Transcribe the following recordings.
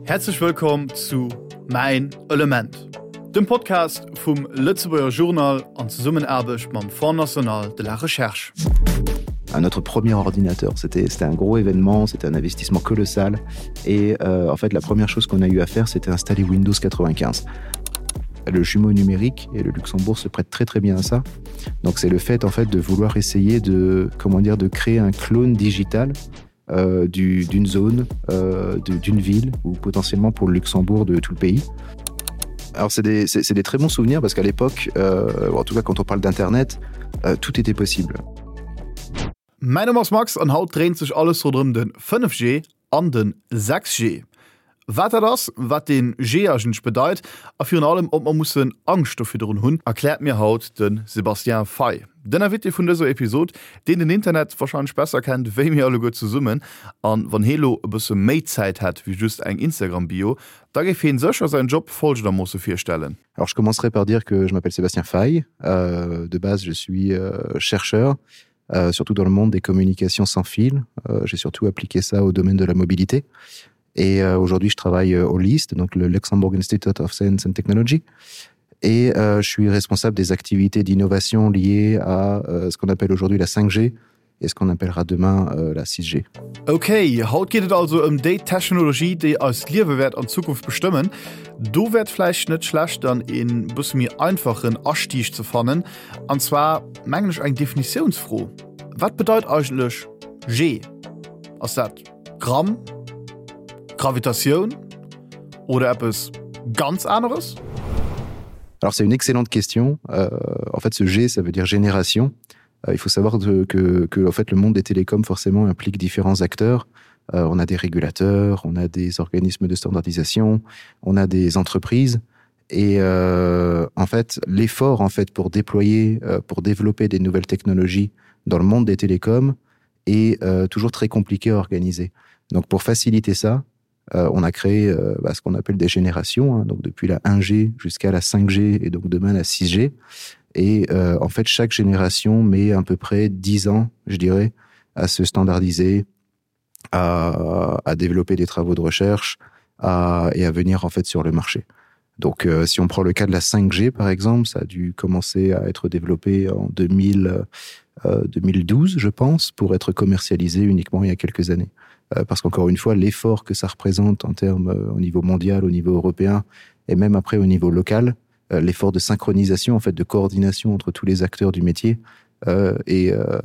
Häerzlech wëllkomm zu Mäin Element, dem Podcast vum Lëtzebuerger Journal an Zesummenaarbecht mam Fonds national de la recherche. Notre premier ordinateur, c'était un gros événement, c'était un investissement colossal et euh, en fait la première chose qu'on a eu à faire c'était installer Windows 95. Le jumeau numérique et le Luxembourg se prête très très bien à ça. Donc c'est le fait en fait de vouloir essayer de comment dire de créer un clone digital euh, d'une zone, euh, d'une ville ou potentiellement pour le Luxembourg de tout le pays. Alors c'est des, des très bons souvenirs parce qu'à l'époque, euh, en tout cas quand on parle d'internet, euh, tout était possible. Mäin Numm ass Max an haut dréint sech alles ronderëm de 5G an de 6G. Wat dat ass, wat dee G eigentlech bedeit a virun allem ob mer mussen Angscht do virdrun hunn, erkläert mir haut de Sébastien Fay, den Invité vun dëser Episod, deen den Internet warscheinlech besser kennt wéi mir alleguer zesummen. An wann hee lo e bësse méi Zäit hätt wéi just eng Instagram-Bio, da géif heen sécher säin Job folgendermoosse virstellen. Alors je commencerai par dire que je m'appelle Sébastien Fay. Euh, de base, je suis euh, chercheur, euh, surtout dans le monde des communications sans fil. Euh, J'ai surtout appliqué ça au domaine de la mobilité. Et euh, aujourd'hui, je travaille euh, au LIST, donc le Luxembourg Institute of Science and Technology. Et euh, je suis responsable des activités d'innovation liées à euh, ce qu'on appelle aujourd'hui la 5G et ce qu'on appellera demain euh, la 6G. Ok, haut geet et also ëm déi Technologie, déi eist Liewe wäert an Zukunft bestëmmen. Do wär et vläicht net schlecht dann een bësse méi einfachen Astieg ze fannen, an zwar mengen ech eng Definitiounsfro. Wat bedeit eigentlech G? Ass dat Gramm, Gravitatioun oder eppes ganz aneres? Alors c'est une excellente question. Euh, en fait ce G ça veut dire génération. Euh, il faut savoir de, que, que en fait le monde des télécoms forcément implique différents acteurs. Euh, on a des régulateurs, on a des organismes de standardisation, on a des entreprises et euh, en fait l'effort en fait pour déployer euh, pour développer des nouvelles technologies dans le monde des télécoms est euh, toujours très compliqué à organiser. Donc pour faciliter ça, euh, on a créé euh, bah, ce qu'on appelle des générations hein, donc depuis la 1G jusqu'à la 5G et donc demain la 6G et euh, en fait chaque génération met à peu près 10 ans je dirais à se standardiser à, à développer des travaux de recherche à, et à venir en fait sur le marché. Donc euh, si on prend le cas de la 5G par exemple, ça a dû commencer à être développé en 2000, euh, 2012 je pense pour être commercialisé uniquement il y a quelques années. Euh, parce qu'encore une fois, l'effort que ça représente en termes euh, au niveau mondial, au niveau européen et même après au niveau local, euh, l'effort de synchronisation en fait de coordination entre tous les acteurs du métier euh, est, euh,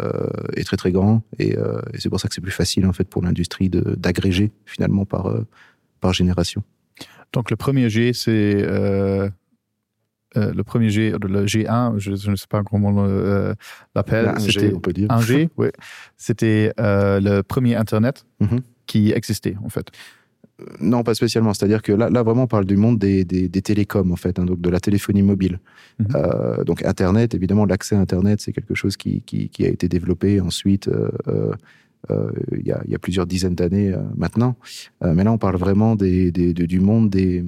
est très très grand et, euh, et c'est pour ça que c'est plus facile en fait pour l'industrie d'agréger finalement par, euh, par génération. Donc le premier G c'est euh, euh, le premier G le G1 je, je ne sais pas comment euh, l'appelle c'était on peut dire un G oui. c'était euh, le premier internet mm -hmm. qui existait en fait. Euh, non, pas spécialement. C'est-à-dire que là, là, vraiment, on parle du monde des, des, des télécoms, en fait, hein, donc de la téléphonie mobile. Mm -hmm. euh, donc Internet, évidemment, l'accès à Internet, c'est quelque chose qui, qui, qui a été développé ensuite euh, euh, euh, il, y a, il y a plusieurs dizaines d'années euh, maintenant. Euh, mais là, on parle vraiment des, des, de, du monde des,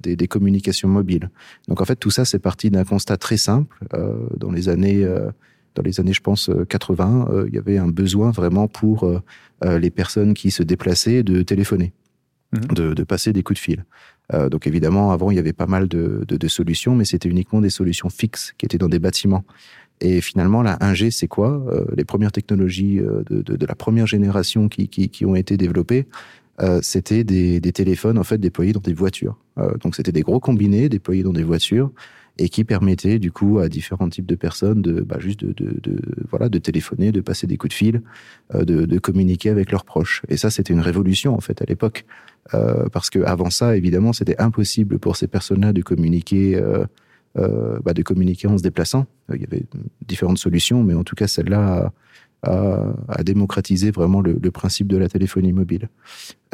des, des communications mobiles. Donc en fait, tout ça, c'est parti d'un constat très simple. Euh, dans les années... Euh, dans les années je pense 80 euh, euh, il y avait un besoin vraiment pour euh, euh, les personnes qui se déplaçaient de téléphoner mmh. de, de passer des coups de fil euh, donc évidemment avant il y avait pas mal de, de, de solutions mais c'était uniquement des solutions fixes qui étaient dans des bâtiments et finalement la 1g c'est quoi euh, les premières technologies euh, de, de, de la première génération qui, qui, qui ont été développées euh, c'était des, des téléphones en fait déployés dans des voitures euh, donc c'était des gros combinés déployés dans des voitures et qui permettait du coup à différents types de personnes de bah, juste de, de, de voilà de téléphoner de passer des coups de fil euh, de, de communiquer avec leurs proches et ça c'était une révolution en fait à l'époque euh, parce que avant ça évidemment c'était impossible pour ces personnes là de communiquer euh, euh, bah, de communiquer en se déplaçant il y avait différentes solutions mais en tout cas celle là a, a, a démocratisé vraiment le, le principe de la téléphonie mobile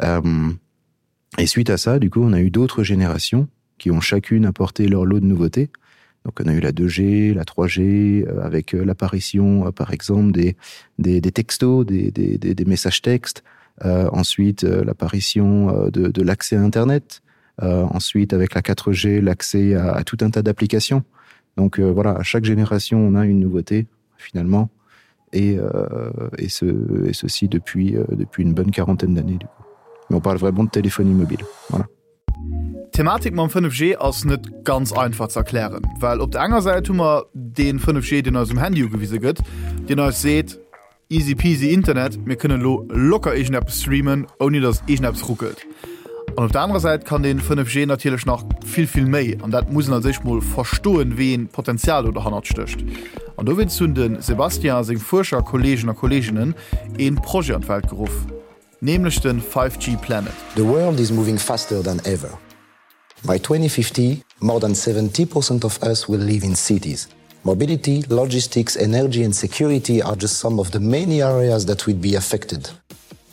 euh, et suite à ça du coup on a eu d'autres générations qui ont chacune apporté leur lot de nouveautés. Donc on a eu la 2G, la 3G euh, avec euh, l'apparition euh, par exemple des, des, des textos, des, des, des, des messages textes, euh, ensuite euh, l'apparition euh, de, de l'accès à Internet, euh, ensuite avec la 4G, l'accès à, à tout un tas d'applications. Donc euh, voilà, à chaque génération on a une nouveauté finalement et, euh, et, ce, et ceci depuis, euh, depuis une bonne quarantaine d'années du coup. Mais on parle vraiment de téléphonie mobile. Voilà. D'Thematik mam 5G ass net ganz einfach ze erklären, well op der enger Säit hu mer dee 5G, deen eis um Handy ugewise gëtt, deen eis seet, Easy peasy Internet, mir kënnen elo locker iergendeppes streamen, ouni datt iergendeppes ruckelt. An op der anerer Säit kann dee 5G natierlech nach vill, vill méi, an dat muss een als éischt mol verstoen, wéi een Potenzial do derhannert stécht. An dowéinst hunn de Sébastien a seng Fuerscher-Kolleegen a Kolleeginnen ee Projet an d'Welt geruff, nämlech de 5G Planet. The world is moving faster than ever. By 2050, more than 70% of us will live in cities. Mobility, logistics, energy and security are just some of the many areas that will be affected.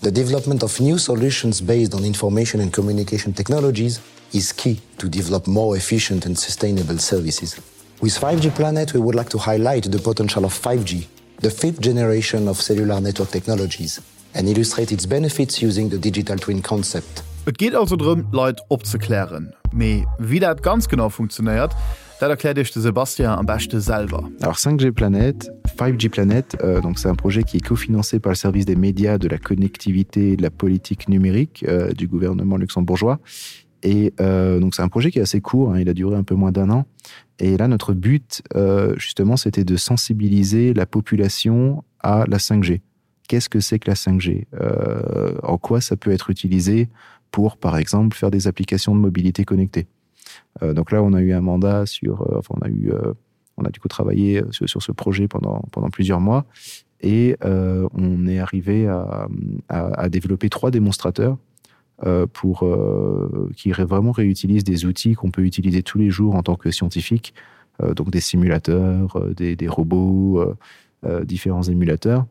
The development of new solutions based on information and communication technologies is key to develop more efficient and sustainable services. With 5G Planet, we would like to highlight the potential of 5G, the fifth generation of cellular network technologies and illustrate its benefits using the digital twin concept. Et geet also drëm, d'Leit opzeklären. Mee wéi dat ganz genau funktionéiert, dat erkläert Iech de Sébastien am beschte selwer. Alors 5G Planet, 5G Planet, euh, donc c'est un projet qui est cofinancé par le service des médias, de la connectivité et de la politique numérique euh, du gouvernement luxembourgeois. Et euh, donc c'est un projet qui est assez court, hein, il a duré un peu moins d'un an. Et là, notre but, euh, justement, c'était de sensibiliser la population à la 5G. Qu'est-ce que c'est que la 5G euh, En quoi ça peut être utilisé pour, par exemple, faire des applications de mobilité connectée euh, Donc là, on a eu un mandat sur... Euh, enfin, on a eu... Euh, on a du coup travaillé euh, sur, sur ce projet pendant, pendant plusieurs mois et euh, on est arrivé à, à, à développer trois démonstrateurs euh, pour euh, qui vraiment réutilisent des outils qu'on peut utiliser tous les jours en tant que scientifique, euh, donc des simulateurs, euh, des, des robots, euh, euh, différents émulateurs.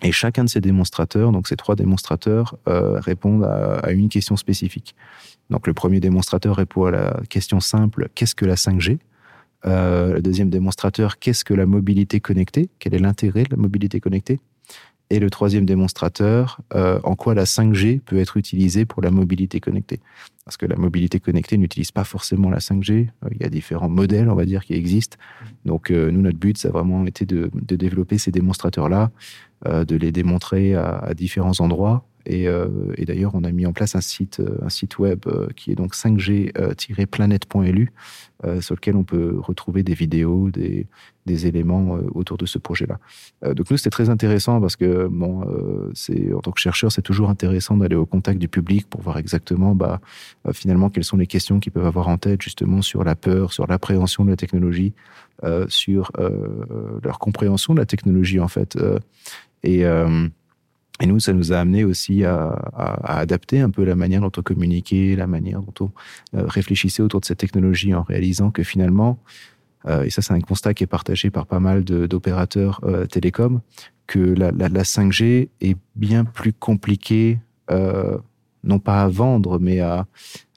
Et chacun de ces démonstrateurs, donc ces trois démonstrateurs, euh, répondent à, à une question spécifique. Donc le premier démonstrateur répond à la question simple qu'est-ce que la 5G euh, Le deuxième démonstrateur, qu'est-ce que la mobilité connectée Quel est l'intérêt de la mobilité connectée Et le troisième démonstrateur, euh, en quoi la 5G peut être utilisée pour la mobilité connectée Parce que la mobilité connectée n'utilise pas forcément la 5G. Euh, il y a différents modèles, on va dire, qui existent. Donc euh, nous, notre but, ça a vraiment été de, de développer ces démonstrateurs-là, euh, de les démontrer à, à différents endroits. Et, euh, et d'ailleurs, on a mis en place un site, euh, un site web euh, qui est donc 5g-planet.lu, euh, sur lequel on peut retrouver des vidéos, des, des éléments euh, autour de ce projet-là. Euh, donc nous, c'était très intéressant parce que bon, euh, c'est, en tant que chercheur, c'est toujours intéressant d'aller au contact du public pour voir exactement bah, euh, finalement quelles sont les questions qu'ils peuvent avoir en tête justement sur la peur, sur l'appréhension de la technologie, euh, sur euh, leur compréhension de la technologie en fait. Euh, et, euh, Et nous, ça nous a amené aussi à, à, à adapter un peu la manière dont on communiquait, la manière dont on euh, réfléchissait autour de cette technologie en réalisant que finalement, euh, et ça c'est un constat qui est partagé par pas mal d'opérateurs euh, télécoms, que la, la, la 5G est bien plus compliquée, euh, non pas à vendre, mais à,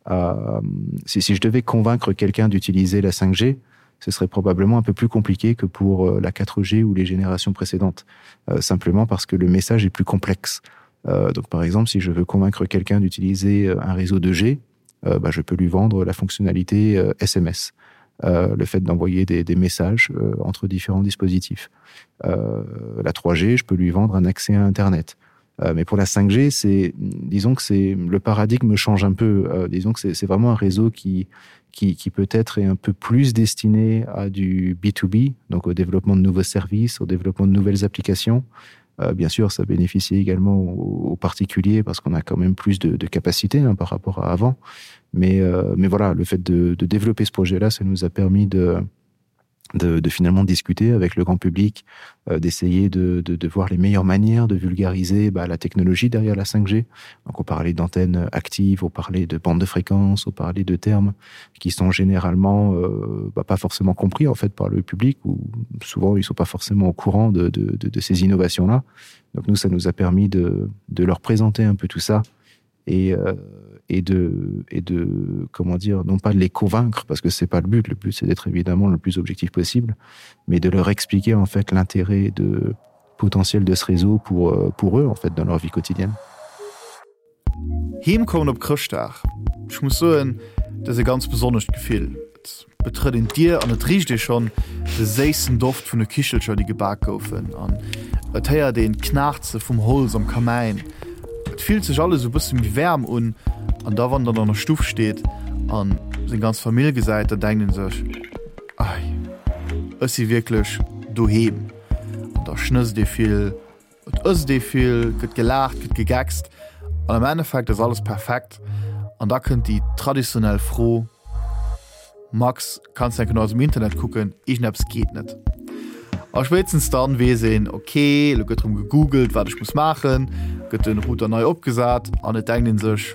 à si, si je devais convaincre quelqu'un d'utiliser la 5G, ce serait probablement un peu plus compliqué que pour euh, la 4G ou les générations précédentes, euh, simplement parce que le message est plus complexe. Euh, donc par exemple, si je veux convaincre quelqu'un d'utiliser euh, un réseau 2G, euh, bah, je peux lui vendre la fonctionnalité euh, SMS, euh, le fait d'envoyer des, des messages euh, entre différents dispositifs. Euh, la 3G, je peux lui vendre un accès à Internet. Euh, mais pour la 5G, c'est disons que c'est le paradigme change un peu. Euh, disons que c'est vraiment un réseau qui, qui, qui peut-être est un peu plus destiné à du B2B, donc au développement de nouveaux services, au développement de nouvelles applications. Euh, bien sûr, ça bénéficie également aux, aux particuliers parce qu'on a quand même plus de, de capacités hein, par rapport à avant. Mais, euh, mais voilà, le fait de, de développer ce projet-là, ça nous a permis de, de, de finalement discuter avec le grand public, euh, d'essayer de, de, de voir les meilleures manières de vulgariser bah, la technologie derrière la 5G. Donc on parlait d'antennes actives, on parlait de bandes de fréquences, on parlait de termes qui sont généralement euh, bah, pas forcément compris en fait par le public ou souvent ils sont pas forcément au courant de, de, de, de ces innovations-là. Donc nous, ça nous a permis de, de leur présenter un peu tout ça et, euh, et de et de comment dire non pas de les convaincre parce que c'est pas le but le but c'est d'être évidemment le plus objectif possible mais de leur expliquer en fait l'intérêt de potentiel de ce réseau pour euh, pour eux en fait dans leur vie quotidienne Heem kommen op Chrëschtdag, ech muss soen, dat ass e ganz besonnescht Gefill. Et betrëtt een d'Dier an et richt ee schonn de séissen Doft vun de Kichelcher, déi gebak goufen an et héiert een d'Knaarze vum Holz am Kamäin. Et fillt sech alles e bësse méi waarm un an da wann der an der Stuff steet. an seng ganz Famill gesäit, dann denkt een sech, Ei, ech si wierklech doheem. An da schnësst ee vill, et ësst ee vill, gëtt gelaacht, gëtt gegeckst an am Endeffekt ass alles perfekt. An da kënnt déi traditionell Fro, Max, kanns de enke no eisem Internet kucken, iergendeppes geet net. A spéitstens dann weess een, ok, elo gëtt erëm gegoogelt, wat ech muss maachen, gëtt den Router nei opgesat an et denkt een sech,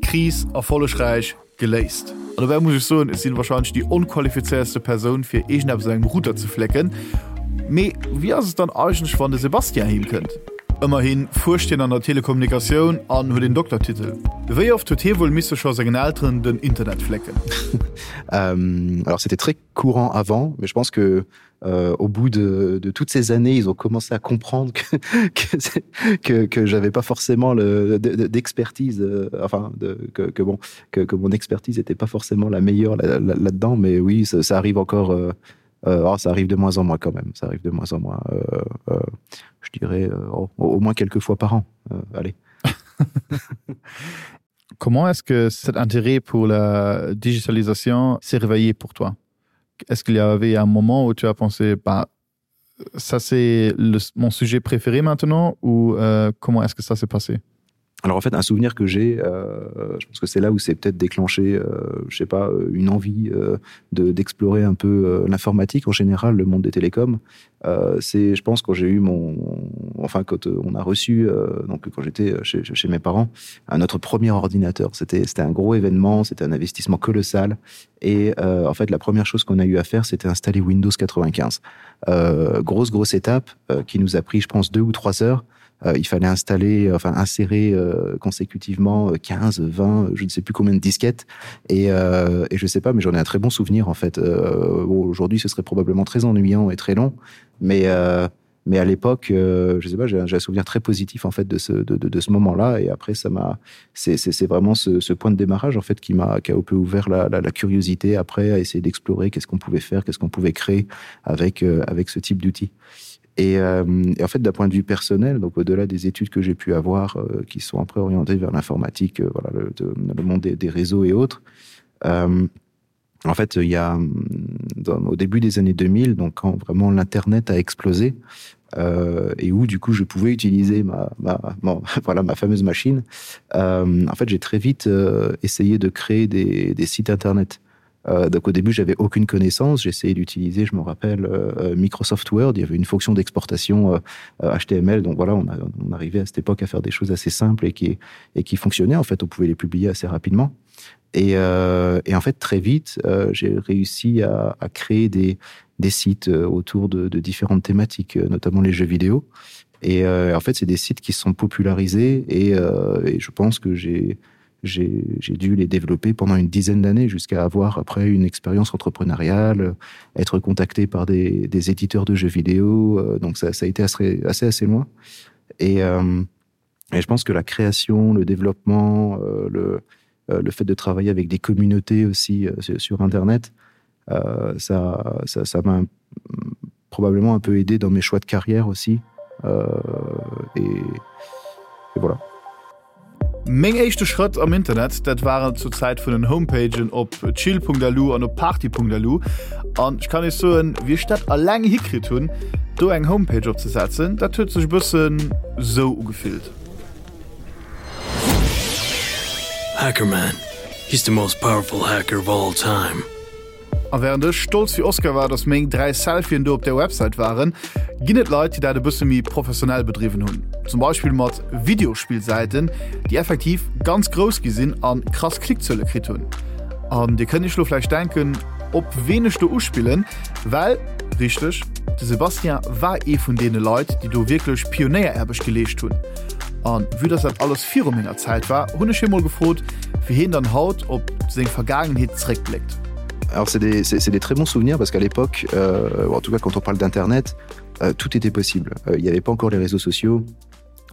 Kris erfollegräich geléist. An dobäi muss ech soen, ech sinn wahrscheinlech déi onqualifizéiertste Persoun fir iergendeppes un engem Router ze flécken. Mee wéi ass et dann eigentlech wann de Sébastien heem kënnt? Ëmmerhi fuerscht hien an der Telekommunikatioun an huet een Doktertitel. Wéi oft huet hie wuel misse scho sengen Elteren den Internet flécken? Alors c'était très courant avant, mais je pense que euh, au bout de, de toutes ces années, ils ont commencé à comprendre que, que, que, que j'avais pas forcément d'expertise euh, enfin de, que, que bon que, que mon expertise n'était pas forcément la meilleure là-dedans, là, là mais oui, ça, ça arrive encore euh, euh, oh, ça arrive de moins en moins quand même ça arrive de moins en moins euh, euh, je dirais euh, au, au moins quelques fois par an euh, allez comment est-ce que cet intérêt pour la digitalisation s'est réveillé pour toi est-ce qu'il y avait un moment où tu as pensé bah ça c'est mon sujet préféré maintenant ou euh, comment est-ce que ça s'est passé Alors en fait un souvenir que j'ai euh, je pense que c'est là où c'est peut-être déclenché euh, je sais pas euh, une envie euh, de d'explorer un peu euh, l'informatique en général le monde des télécoms euh, c'est je pense quand j'ai eu mon enfin quand euh, on a reçu euh, donc quand j'étais euh, chez, chez mes parents un notre premier ordinateur c'était c'était un gros événement c'était un investissement colossal et euh, en fait la première chose qu'on a eu à faire c'était installer Windows 95 euh, grosse grosse étape euh, qui nous a pris je pense deux ou trois heures et euh, il fallait installer enfin insérer euh, consécutivement 15 euh, 20 je ne sais plus combien de disquettes et, euh, et je sais pas mais j'en ai un très bon souvenir en fait euh, bon, aujourd'hui ce serait probablement très ennuyant et très long mais euh, mais à l'époque euh, je sais pas j'ai un souvenir très positif en fait de ce de, de, de ce moment là et après ça m'a c'est vraiment ce, ce point de démarrage en fait qui m'a qui a un peu ouvert la, la, la curiosité après à essayer d'explorer qu'est ce qu'on pouvait faire qu'est ce qu'on pouvait créer avec euh, avec ce type d'outil et, euh, et en fait d'un point de vue personnel donc au delà des études que j'ai pu avoir euh, qui sont après orientées vers l'informatique euh, voilà le, de, le monde des, des réseaux et autres euh, en fait il ya dans, au début des années 2000 donc quand vraiment l'internet a explosé euh, et où du coup je pouvais utiliser ma, ma bon, voilà ma fameuse machine euh, en fait j'ai très vite euh, essayé de créer des, des sites internet euh, Euh, donc au début j'avais aucune connaissance j'essayais d'utiliser je me rappelle euh, euh Microsoft Word il y avait une fonction d'exportation euh, HTML euh, donc voilà on, a, on arrivait à cette époque à faire des choses assez simples et qui et qui fonctionnaient en fait on pouvait les publier assez rapidement et, euh, et en fait très vite euh, j'ai réussi à, à créer des des sites euh, autour de, de différentes thématiques notamment les jeux vidéo et euh, en fait c'est des sites qui sont popularisés et, euh, et je pense que j'ai j'ai dû les développer pendant une dizaine d'années jusqu'à avoir après une expérience entrepreneuriale, être contacté par des, des éditeurs de jeux vidéo euh, donc ça, ça a été assez assez, assez loin et, euh, et je pense que la création le développement euh, le, euh, le fait de travailler avec des communautés aussi euh, sur internet euh, ça ça ça m'a probablement un peu aidé dans mes choix de carrière aussi euh, et, et voilà. Meng éischte Schrëtt am Internet, dat waren zur Zäit vun den Homepagen op chill.lu an op party.lu. An ech kann iech soen, wéi ech dat alleng hikritt hunn, do eng Homepage opzesetzen, dat huet sech e bëssen sou ugefillt. Hackerman, he's the most powerful hacker of all time. A während ech stolz wéi Oscar war, dass meng 3 Selfien do op där Website waren, ginn et Leit, déi dat e bësse méi professionell bedriwwen hunn. Zum Beispill mat Videospillsäiten, déi effektiv ganz grouss gi sinn a krass Klickzuele kritt hunn. An dir kënnt iech lo vläicht denken, op ween ech do uspillen, well, richteg, de Sébastien war ee vun deene Leit, déi do wierklech Pionéieraarbecht geleescht hunn. An vue dass dat alles viru menger Zäit war, hunn ech hie mol gefrot, wéi hien dann haut op seng Vergaangenheet zeréckbléckt. Alors c'est des, c'est des très bons souvenirs parce qu'à l'époque euh, en tout cas quand on parle d'internet euh, tout était possible euh, il n'y avait pas encore les réseaux sociaux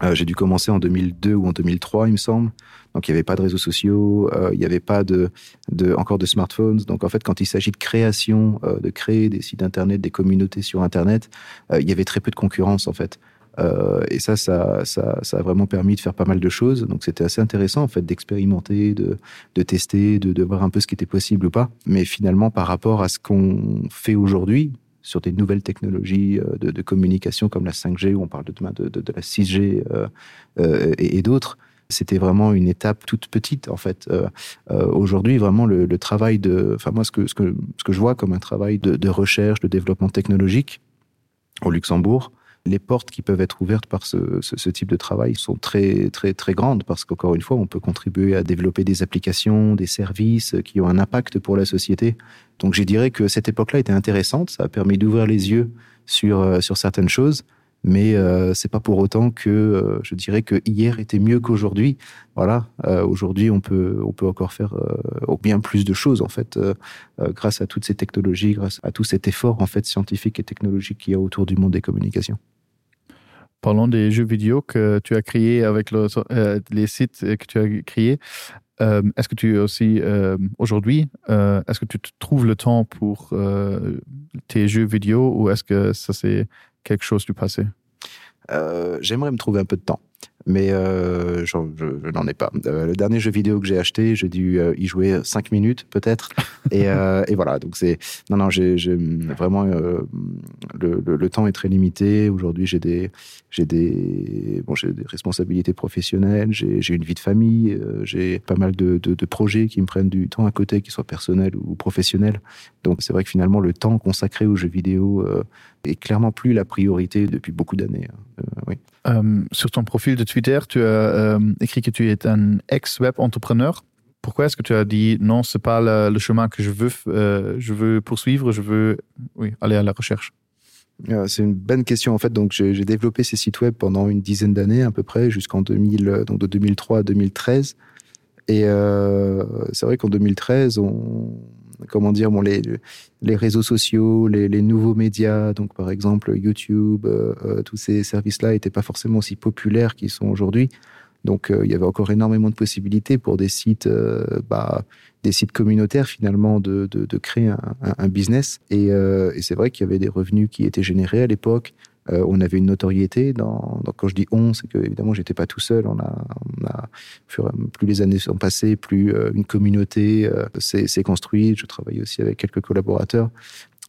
euh, j'ai dû commencer en 2002 ou en 2003 il me semble donc il n'y avait pas de réseaux sociaux euh, il n'y avait pas de, de encore de smartphones donc en fait quand il s'agit de création euh, de créer des sites internet des communautés sur internet euh, il y avait très peu de concurrence en fait. Euh, et ça, ça, ça, ça a vraiment permis de faire pas mal de choses. Donc c'était assez intéressant en fait d'expérimenter, de, de tester, de, de voir un peu ce qui était possible ou pas. Mais finalement, par rapport à ce qu'on fait aujourd'hui sur des nouvelles technologies euh, de, de communication comme la 5G, où on parle de demain de, de, de la 6G euh, euh, et, et d'autres, c'était vraiment une étape toute petite en fait. Euh, euh, aujourd'hui, vraiment le, le travail de enfin moi ce que, ce, que, ce que je vois comme un travail de, de recherche, de développement technologique au Luxembourg, les portes qui peuvent être ouvertes par ce, ce, ce type de travail sont très très très grandes parce qu'encore une fois on peut contribuer à développer des applications des services qui ont un impact pour la société donc je dirais que cette époque là était intéressante ça a permis d'ouvrir les yeux sur euh, sur certaines choses mais euh, c'est pas pour autant que euh, je dirais que hier était mieux qu'aujourd'hui voilà euh, aujourd'hui on peut on peut encore faire euh, bien plus de choses en fait euh, euh, grâce à toutes ces technologies grâce à tout cet effort en fait scientifique et technologique qu'il y a autour du monde des communications Parlons des jeux vidéo que tu as créé avec le, euh, les sites que tu as créé. Euh, est-ce que tu es aussi euh, aujourd'hui euh, est-ce que tu te trouves le temps pour euh, tes jeux vidéo ou est-ce que ça c'est quelque chose du passé euh, J'aimerais me trouver un peu de temps mais euh, je, je, je n'en ai pas. Euh, le dernier jeu vidéo que j'ai acheté, j'ai dû euh, y jouer cinq minutes peut-être et, euh, et voilà donc c'est non non j'ai vraiment euh, le, le, le temps est très limité aujourd'hui j'ai des j'ai des bon j'ai des responsabilités professionnelles j'ai une vie de famille euh, j'ai pas mal de, de, de projets qui me prennent du temps à côté qui soient personnels ou professionnels donc c'est vrai que finalement le temps consacré aux jeux vidéo euh, est clairement plus la priorité depuis beaucoup d'années euh, oui euh, sur ton profil de Twitter tu as euh, écrit que tu es un ex web entrepreneur pourquoi est-ce que tu as dit non c'est pas le, le chemin que je veux euh, je veux poursuivre je veux oui aller à la recherche euh, c'est une bonne question en fait donc j'ai développé ces sites web pendant une dizaine d'années à peu près jusqu'en 2000 euh, donc de 2003 à 2013 et euh, c'est vrai qu'en 2013 on comment dire bon les les réseaux sociaux les, les nouveaux médias donc par exemple youtube euh, euh, tous ces services là n'étaient pas forcément aussi populaires qu'ils sont aujourd'hui donc euh, il y avait encore énormément de possibilités pour des sites euh, bah, des sites communautaires finalement de, de, de créer un, un, un business et, euh, et c'est vrai qu'il y avait des revenus qui étaient générés à l'époque euh, on avait une notoriété dans, dans quand je dis on c'est que évidemment j'étais pas tout seul on a, on a plus les années sont passées plus euh, une communauté euh, s'est construite je travaillais aussi avec quelques collaborateurs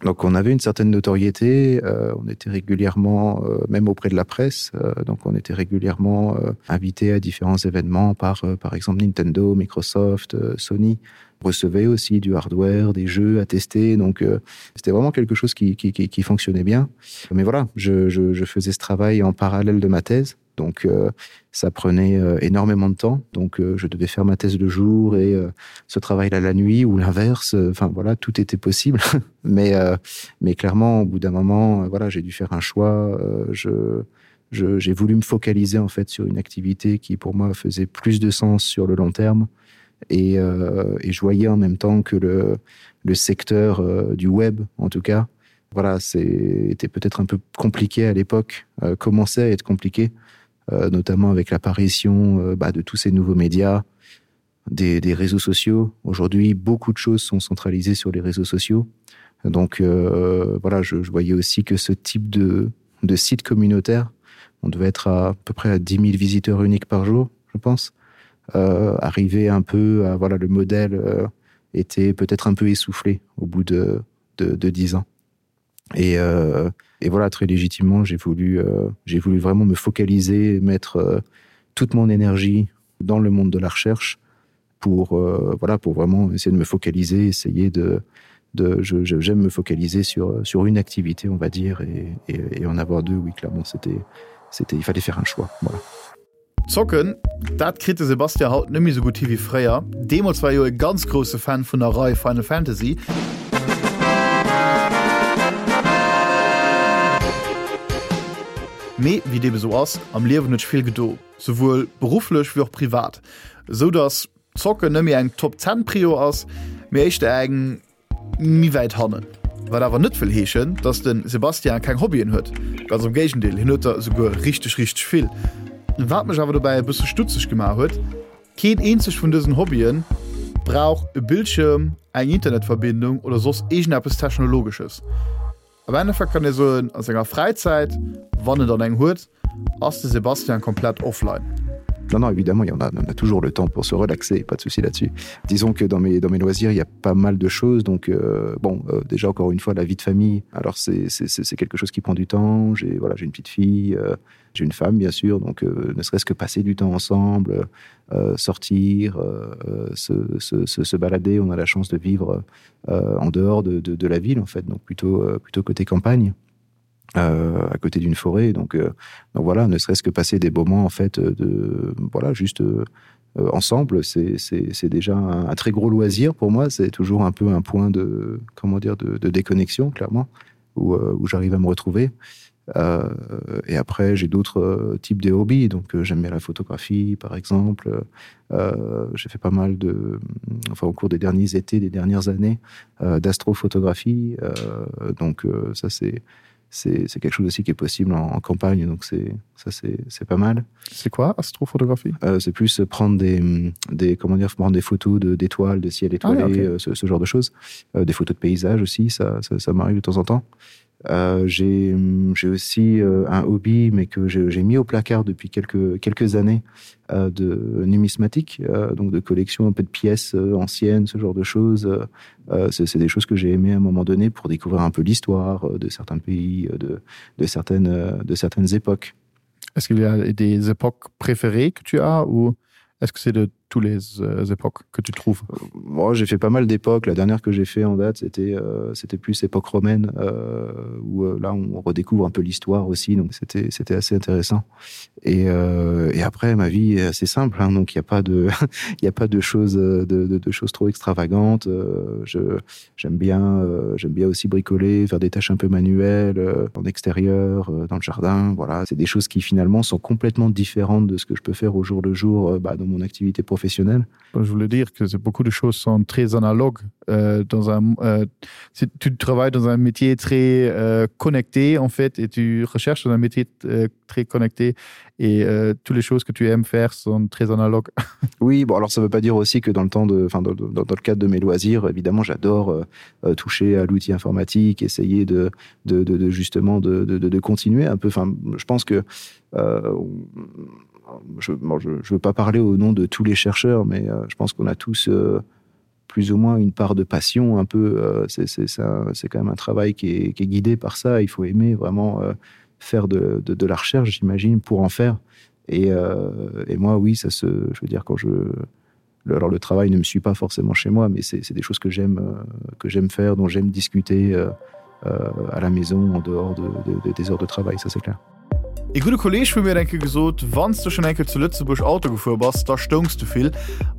donc on avait une certaine notoriété euh, on était régulièrement euh, même auprès de la presse euh, donc on était régulièrement euh, invité à différents événements par euh, par exemple Nintendo Microsoft euh, Sony recevait aussi du hardware des jeux à tester donc euh, c'était vraiment quelque chose qui, qui, qui, qui fonctionnait bien mais voilà je, je, je faisais ce travail en parallèle de ma thèse donc euh, ça prenait euh, énormément de temps donc euh, je devais faire ma thèse le jour et euh, ce travail là la nuit ou l'inverse enfin voilà tout était possible mais euh, mais clairement au bout d'un moment euh, voilà j'ai dû faire un choix euh, je j'ai voulu me focaliser en fait sur une activité qui pour moi faisait plus de sens sur le long terme et, euh, et je voyais en même temps que le, le secteur euh, du web en tout cas voilà c'était peut-être un peu compliqué à l'époque euh, commençait à être compliqué euh, notamment avec l'apparition euh, bah, de tous ces nouveaux médias des, des réseaux sociaux aujourd'hui beaucoup de choses sont centralisées sur les réseaux sociaux donc euh, voilà je, je voyais aussi que ce type de, de site communautaire on devait être à, à peu près à 10 000 visiteurs uniques par jour je pense euh, arriver un peu à voilà le modèle euh, était peut-être un peu essoufflé au bout de de, de 10 ans et, euh, et voilà très légitimement j'ai voulu euh, j'ai voulu vraiment me focaliser mettre euh, toute mon énergie dans le monde de la recherche pour euh, voilà pour vraiment essayer de me focaliser essayer de de j'aime me focaliser sur sur une activité on va dire et, et, et en avoir deux oui clairement c'était c'était il fallait faire un choix voilà Zocken, dat kritt de Sebastien haut net méi sou gutt hi wéi fréier. Deemools war e jo e ganz grousse Fan vun der Rei Final Fantasy. Mee wéi et ebe sou ass, am Liewen huet sech vill gedo, souwuel berufflech wéi och privat, esou dass Zocken net méi eng Top 10 Prio ass, mee éischter eng. Méi wäit hannen. Wat awer net wëll heeschen, dass de Sébastien keng Hobbyen huet. Ganz am Géigendeel, hien huet der esouguer richteg, richteg vill. Wat mech awer dobäi e bësse stutzeg gemaach huet, Keen eenzeg vun dësen Hobbyen brauch e Bildschirm, eng Internetverbindung oder soss iergendeppes Technologesches. Am Endeffekt kann ee soen, a senger Fräizäit, wann en dann eng huet, ass de Sébastien komplett offline. Non, non, évidemment, il y en a, on a toujours le temps pour se relaxer, pas de souci là-dessus. Disons que dans mes, dans mes loisirs, il y a pas mal de choses. Donc, euh, bon, euh, déjà, encore une fois, la vie de famille, alors c'est quelque chose qui prend du temps. J'ai voilà, une petite fille, euh, j'ai une femme, bien sûr, donc euh, ne serait-ce que passer du temps ensemble, euh, sortir, euh, se, se, se, se balader. On a la chance de vivre euh, en dehors de, de, de la ville, en fait, donc plutôt, euh, plutôt côté campagne. Euh, à côté d'une forêt donc, euh, donc voilà ne serait-ce que passer des moments en fait de voilà juste euh, ensemble c'est déjà un, un très gros loisir pour moi c'est toujours un peu un point de comment dire de, de déconnexion clairement où, euh, où j'arrive à me retrouver et Euh, et après j'ai d'autres euh, types de hobbies donc euh, j'aime bien la photographie par exemple euh, j'ai fait pas mal de enfin au cours des derniers étés des dernières années euh, d'astrophotographie euh, donc euh, ça c'est c'est quelque chose aussi qui est possible en, en campagne donc c'est ça c'est pas mal c'est quoi astrophotographie euh, c'est plus prendre des des comment dire prendre des photos de d'étoiles de ciel étoilé ah, okay. Euh, ce, ce genre de choses euh, des photos de paysages aussi ça ça, ça m'arrive de temps en temps et Euh, j'ai aussi euh, un hobby mais que j'ai mis au placard depuis quelques quelques années euh, de numismatique euh, donc de collection un peu de pièces euh, anciennes ce genre de choses euh, c'est des choses que j'ai aimé à un moment donné pour découvrir un peu l'histoire euh, de certains pays euh, de, de certaines euh, de certaines époques est-ce qu'il y a des époques préférées que tu as ou est-ce que c'est de tous les euh, époques que tu trouves euh, Moi, j'ai fait pas mal d'époques. La dernière que j'ai fait en date, c'était euh, c'était plus époque romaine, euh, où euh, là, on redécouvre un peu l'histoire aussi. Donc, c'était assez intéressant. Et, euh, et après, ma vie est assez simple. Hein, donc, il n'y a pas de, il a pas de choses, de, de, de choses trop extravagantes. Euh, J'aime bien, euh, j'aime bien aussi bricoler, faire des tâches un peu manuelles euh, en extérieur, euh, dans le jardin. Voilà, c'est des choses qui finalement sont complètement différentes de ce que je peux faire au jour le jour euh, bah, dans mon activité professionnelle. Je voulais dire que beaucoup de choses sont très analogues euh, dans un euh, si tu travailles dans un métier très euh, connecté en fait et tu recherches dans un métier euh, très connecté et euh, toutes les choses que tu aimes faire sont très analogues. Oui, bon alors ça veut pas dire aussi que dans le temps de enfin dans, dans, dans le cadre de mes loisirs, évidemment j'adore euh, euh toucher à l'outil informatique, essayer de, de, de, de justement de, de, de, de continuer un peu enfin je pense que euh, je, bon, je, je veux pas parler au nom de tous les chercheurs, mais euh, je pense qu'on a tous euh, plus ou moins une part de passion un peu euh, c'est quand même un travail qui est, qui est guidé par ça il faut aimer vraiment euh, faire de, de, de la recherche j'imagine pour en faire et, euh, et moi oui ça se je veux dire quand je le, alors le travail ne me suit pas forcément chez moi mais c'est des choses que j'aime euh, que j'aime faire dont j'aime discuter euh, euh, à la maison en dehors de, de, de, des heures de travail ça c'est clair Ee gudde Kolleeg vu mir huet eng Kéier gesot, Wann s de schonn eng Kéier zu Lëtzebuerg Auto gefuer bass, da stoungs de vill.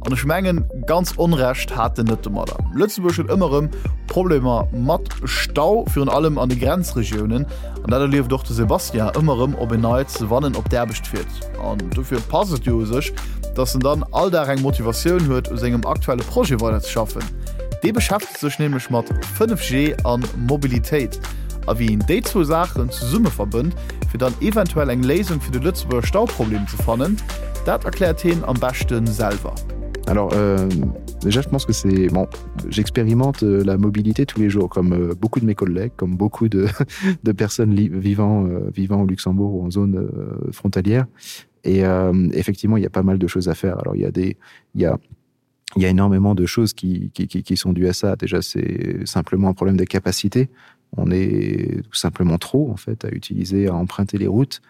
An ech mengen, ganz Onrecht hat en net domadder. Lëtzebuerg huet ëmmer erëm Problemer mat Stau, virun allem an de Grenzregiounen. An dat erlieft och de Sébastien ëmmer erëm op en Neits, wann en op d'Aarbecht fiert. An dofir passt et jo u sech, dass en dann all Dag eng Motivatioun huet, u sengem aktuelle Projet weiderzeschaffen. Dee beschäftegt sech nämlech mat 5G an Mobilitéit a wéi een déi zwou Saachen zesumme verbënnt, fir dann eventuell eng Léisung fir de Lëtzebuerger Stauproblem ze fannen, dat erkläert heen am beschte selwer. Alors euh, déjà je pense que c'est bon j'expérimente euh, la mobilité tous les jours comme euh, beaucoup de mes collègues comme beaucoup de, de personnes vivant euh, vivant au Luxembourg ou en zone euh, frontalière et euh, effectivement il y a pas mal de choses à faire alors il y a des il y a il y a énormément de choses qui, qui, qui, qui sont dues à ça. Déjà, c'est simplement un problème de capacité. On est tout simplement trop en fait à utiliser, à emprunter les routes.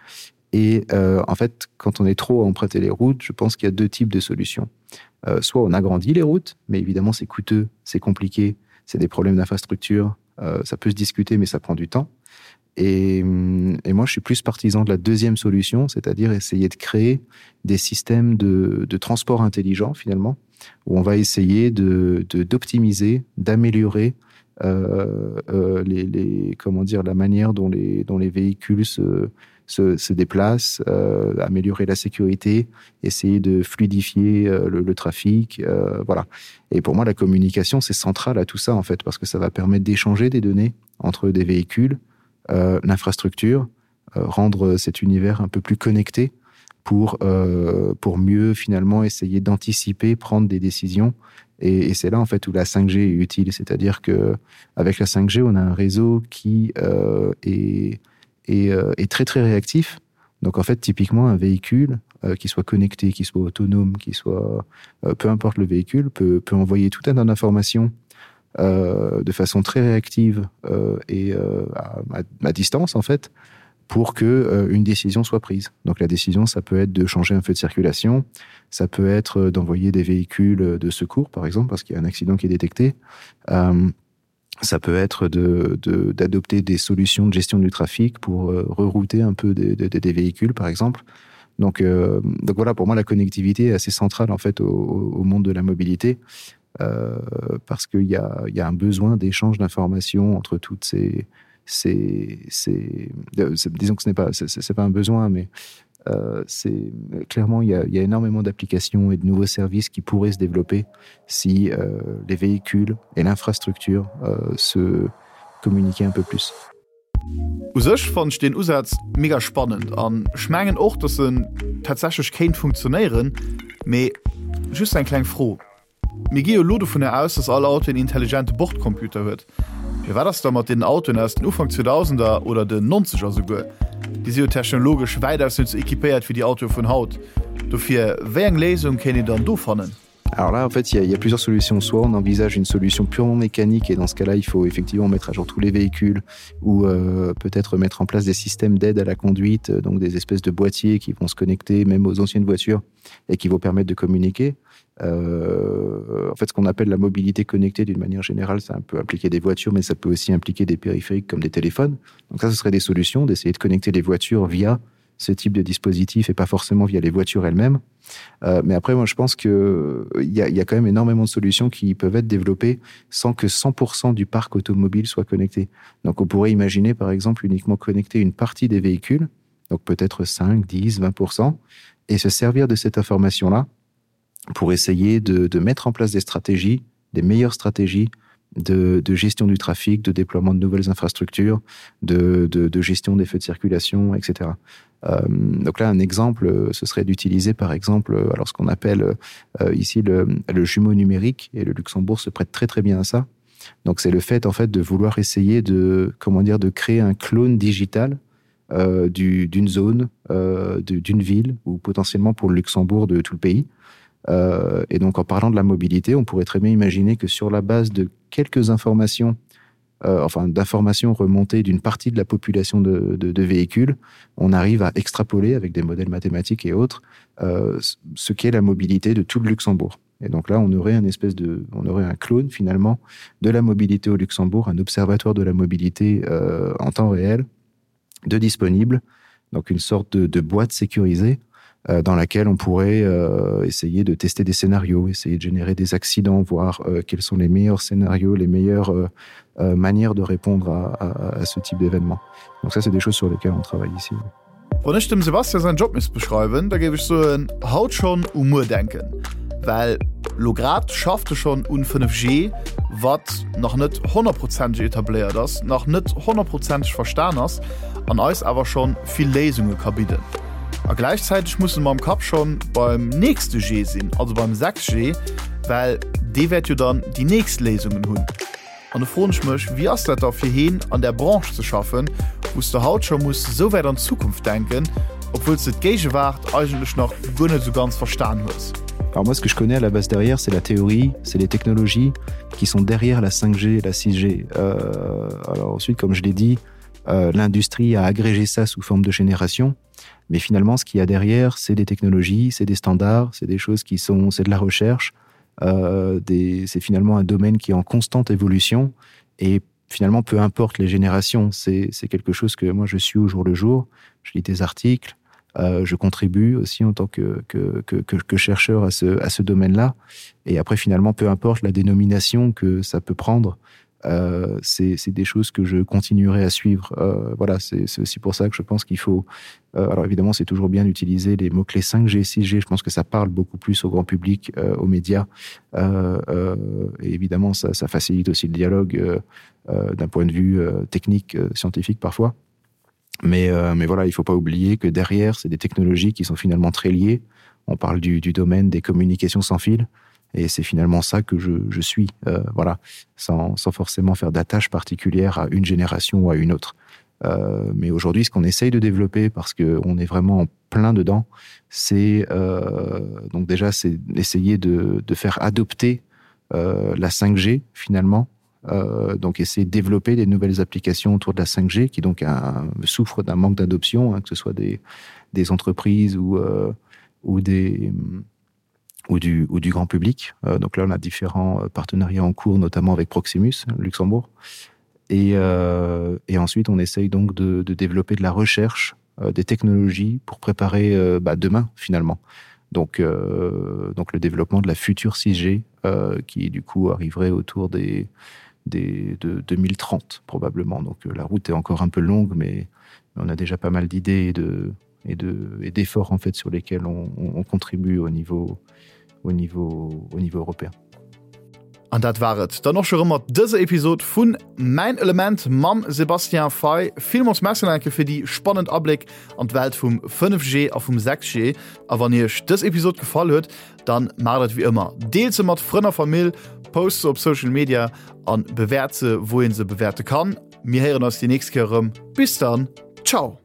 Et euh, en fait, quand on est trop à emprunter les routes, je pense qu'il y a deux types de solutions. Euh, soit on agrandit les routes, mais évidemment c'est coûteux, c'est compliqué, c'est des problèmes d'infrastructure, euh, ça peut se discuter, mais ça prend du temps. Et, et moi, je suis plus partisan de la deuxième solution, c'est-à-dire essayer de créer des systèmes de, de transport intelligent finalement, où on va essayer d'optimiser, d'améliorer euh, euh, les, les, comment dire, la manière dont les, dont les véhicules se, se, se déplacent, euh, améliorer la sécurité, essayer de fluidifier euh, le, le trafic. Euh, voilà. Et pour moi, la communication, c'est central à tout ça, en fait, parce que ça va permettre d'échanger des données entre des véhicules, euh, l'infrastructure, euh, rendre cet univers un peu plus connecté pour, euh, pour mieux finalement essayer d'anticiper, prendre des décisions Et, et c'est là en fait où la 5G est utile, c'est-à-dire que avec la 5G, on a un réseau qui euh, est, est, euh, est très très réactif. Donc en fait typiquement un véhicule euh, qui soit connecté, qui soit autonome, qui soit euh, peu importe le véhicule peut, peut envoyer tout un tas d'informations euh, de façon très réactive euh, et euh, à, à, à distance en fait pour que euh, une décision soit prise. Donc la décision ça peut être de changer un feu de circulation, ça peut être euh, d'envoyer des véhicules de secours par exemple parce qu'il y a un accident qui est détecté. Euh, ça peut être d'adopter de, de, des solutions de gestion du trafic pour euh, rerouter un peu des, des, des véhicules par exemple. Donc, euh, donc voilà pour moi la connectivité est assez centrale en fait au, au monde de la mobilité euh, parce qu'il y a, y a un besoin d'échange d'informations entre toutes ces ces, ces euh, disons que ce n'est pas c'est pas un besoin mais euh, c'est clairement il y a, il y a énormément d'applications et de nouveaux services qui pourraient se développer si euh, les véhicules et l'infrastructure euh, se communiquaient un peu plus. U sech fannen ech deen Usaz mega spannend an ech mengen och dass en tatsächlech kéint funktionéieren, mee just eng kleng Fro, Mir gi jo elo dovunner aus, dass all Auto en intelligente Bordcomputer huet. Mee wat ass da mat deenen Autoen aus den Ufank Zweedausender oder den Nonzeger souguer? Déi si jo technologesch wäitaus net sou equipéiert wéi déi Autoe vun haut. Dofir, wéi eng Léisung kéint een dann do fannen? Alors là, en fait, il y, y a plusieurs solutions. Soit on envisage une solution purement mécanique et dans ce cas-là, il faut effectivement mettre à jour tous les véhicules ou euh, peut-être mettre en place des systèmes d'aide à la conduite, euh, donc des espèces de boîtiers qui vont se connecter même aux anciennes voitures et qui vont permettre de communiquer. Euh, en fait, ce qu'on appelle la mobilité connectée d'une manière générale, ça peut impliquer des voitures, mais ça peut aussi impliquer des périphériques comme des téléphones. Donc ça, ce serait des solutions d'essayer de connecter les voitures via ce type de dispositif et pas forcément via les voitures elles-mêmes. Euh, mais après, moi, je pense qu'il y, a, y a quand même énormément de solutions qui peuvent être développées sans que 100% du parc automobile soit connecté. Donc on pourrait imaginer, par exemple, uniquement connecter une partie des véhicules, donc peut-être 5, 10, 20%, et se servir de cette information-là pour essayer de, de mettre en place des stratégies, des meilleures stratégies de, de gestion du trafic, de déploiement de nouvelles infrastructures, de, de, de gestion des feux de circulation, etc. Euh, donc là, un exemple, ce serait d'utiliser par exemple alors ce qu'on appelle euh, ici le, le jumeau numérique et le Luxembourg se prête très très bien à ça. Donc c'est le fait en fait de vouloir essayer de comment dire de créer un clone digital euh, d'une zone, euh, d'une ville ou potentiellement pour le Luxembourg de tout le pays. Euh, et donc en parlant de la mobilité, on pourrait très bien imaginer que sur la base de quelques informations, euh, enfin d'informations remontées d'une partie de la population de, de, de véhicules, on arrive à extrapoler avec des modèles mathématiques et autres euh, ce qu'est la mobilité de tout le Luxembourg. Et donc là, on aurait un espèce de, on aurait un clone finalement de la mobilité au Luxembourg, un observatoire de la mobilité euh, en temps réel de disponible, donc une sorte de, de boîte sécurisée euh, dans laquelle on pourrait euh, essayer de tester des scénarios, essayer de générer des accidents, voir euh, quels sont les meilleurs scénarios, les meilleures euh, euh, manières de répondre à, à, à ce type d'événement. Donc ça, c'est des choses sur lesquelles on travaille ici. Oui. Wann ech dem Sebastian säin Job misst beschreiwen, da géif ech soen, haut schonn u muer denken. Well lo grad schafft e schonn un 5G, wat nach net honnertprozenteg etabléiert ass, nach net honnertprozenteg verstan ass an eis awer schonn vill Léisunge ka bidden. A gläichzäiteg musse mer am Kapp schonn beim nächste G sinn, also beim 6G, well dee wäert jo dann déi nächst Léisungen hunn. An do froen ech mech, wéi ass dat da fir heen an där Branche ze schaffen, wou s de haut scho muss esou wäit an d'Zukunft denken, obwuel s de d'Géigewaart eigentlech nach guer net esou ganz verstan hues? Alors moi ce que je connais à la base derrière c'est la théorie, c'est les technologies qui sont derrière la 5G et la 6G. Euh, alors ensuite comme je l'ai dit, euh, l'industrie a agrégé ça sous forme de génération, mais finalement ce qu'il y a derrière c'est des technologies, c'est des standards, c'est des choses qui sont c'est de la recherche, euh, c'est finalement un domaine qui est en constante évolution et finalement peu importe les générations c'est quelque chose que moi je suis au jour le jour je lis des articles euh, je contribue aussi en tant que, que, que, que, que chercheur à ce, à ce domaine là et après finalement peu importe la dénomination que ça peut prendre euh, c'est des choses que je continuerai à suivre euh, voilà c'est aussi pour ça que je pense qu'il faut euh, alors évidemment c'est toujours bien d'utiliser les mots clés 5g 6g je pense que ça parle beaucoup plus au grand public euh, aux médias euh, euh, et évidemment ça, ça facilite aussi le dialogue euh, euh, d'un point de vue euh, technique euh, scientifique parfois mais euh, mais voilà il faut pas oublier que derrière c'est des technologies qui sont finalement très liées on parle du, du domaine des communications sans fil et. Et c'est finalement ça que je, je suis euh, voilà sans, sans forcément faire d'attache particulière à une génération ou à une autre. Euh, mais aujourd'hui, ce qu'on essaye de développer parce qu'on est vraiment en plein dedans, c'est euh, donc déjà c'est essayer de, de faire adopter euh, la 5G finalement. Euh, donc essayer de développer des nouvelles applications autour de la 5G qui donc un, souffre d'un manque d'adoption, que ce soit des, des entreprises ou, euh, ou des ou du, ou du grand public. Euh, donc là on a différents euh, partenariats en cours, notamment avec Proximus Luxembourg. Et, euh, et ensuite on essaye donc de, de développer de la recherche euh, des technologies pour préparer euh, bah, demain finalement. Donc, euh, donc le développement de la future 6G euh, qui du coup arriverait autour des, des, de 2030 probablement. Donc euh, la route est encore un peu longue, mais on a déjà pas mal d'idées et de et de et d'efforts en fait sur lesquels on, on, on contribue au niveau au niveau au niveau européen. An dat war et dann och scho rëm mat dëser Episod vun Mäin Element mam Sébastien Fay. Villmools Merci nach eng Kéier fir déi spannend Abléck an d'Welt vum 5G a vum 6G. A wann iech dës Episod gefall huet, dann maacht et wéi ëmmer, Deelt se mat Frënn a Famill, post se op Social Media an bewäert se wou een se bewäerte kann. Mir héieren eis déi nächst Kéier erëm. Bis dann, ciao!